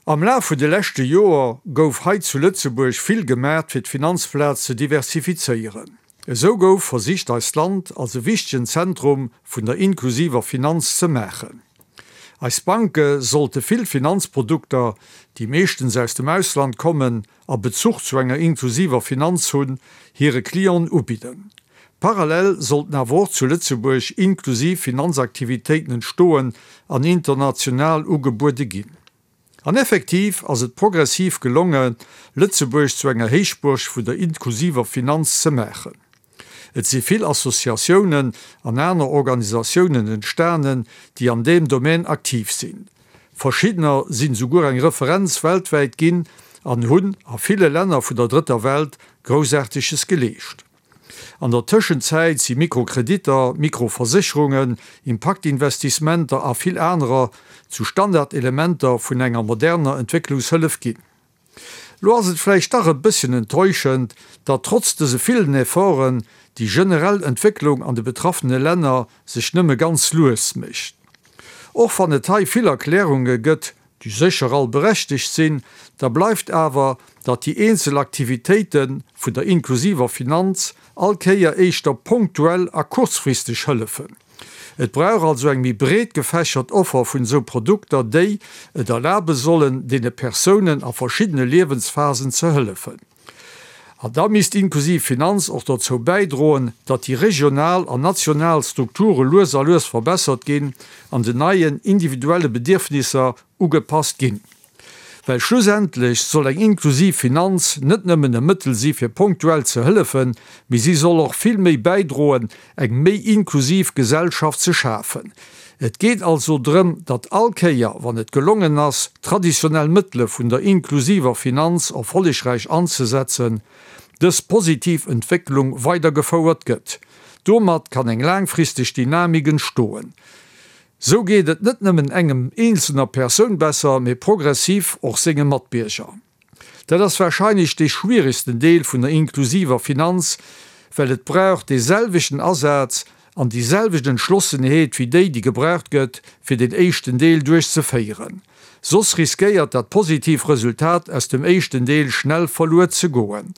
Am Laf vun de leschte Joer gouf hei zu Lëtzebuerg vill gemaacht fir d'Finanzplaz ze diversifizéieren. Esou gouf versicht eist Land als e wichtegen Zentrum vun der inklusiver Finanz ze maachen. Eis Banke sollte vill Finanzprodukter, déi meeschtens aus dem Ausland kommen a Bezuch zu enger inklusiver Finanz hunn, hire Clienten ubidden. Parallel sollten awer och zu Lëtzebuerg inklusiv Finanzaktivitéiten entstoen an international ugebuede ginn. An effektiv ass et progressiv gelonge Lëtzebuerg zu enger Héichbuerg vun der inklusiver Finanz ze maachen. Et si vill Associatiounen an aner Organisatiounen entstanen, déi an deem Domaine aktiv sinn. Verschiddener sinn souguer eng Referenz weltwäit ginn an hunn a ville Länner vun der Drëtter Welt Groussaarteges geleescht. An der Tëschenzäit si Mikrokreditter, Mikroversécherungen, Impaktinvestissementer a vill anerer zu Standardelementer vun enger moderner Entwécklungshëllef ginn. Lo ass et vläicht dach e bësschen enttäuschend, datt trotz dëse villen Efforten déi generell Entwécklung an de betraffene Länner sech nëmme ganz lues mécht. Och wann et hei vill Erklärunge gëtt, déi sécher all berechtegt sinn, da bleift awer, datt déi eenzel Aktivitéite vun der inklusiver Finanz all Kéier éischter ponktuell a kurzfristeg hëllefen. Et brauch also eng méi breet gefächert Offer vun esou Produkter, déi et erlabe sollen, deene Persounen a verschiddene Liewensphasen ze hëllefen. An da misst inklusiv Finanz och dozou bäidroen, datt déi regional an national Strukture lues a lues verbessert ginn an den neien individuelle Bedierfnisser ugepasst ginn. Well schlussendlech soll eng inklusiv Finanz net nëmmen e Mëttel si fir ponktuell ze hëllefen, mee si soll och vill méi bäidroen, eng méi inklusiv Gesellschaft ze schafen. Et geet also drëm, datt all Kéier, wann et gelongen ass, traditionell Mëttele vun der inklusiver Finanz erfollegräich anzesetzen, dës positiv Entwécklung weidergefouert gëtt. Domat kann eng laangfristeg Dynamik entstoen. Sou geet et net nëmmen engem eenzelner Persoun besser, mee progressiv och senge Matbierger. Dat ass warscheinlech dee schwieregsten Deel vun der inklusiver Finanz, well et brauch dee selwechten Asaz an déi selwecht Entschlossenheet wéi déi, déi gebraucht gëtt, fir deen éischten Deel duerchzeféieren. Soss riskéiert dat positiv Resultat aus dem éischten Deel schnell verluer ze goen.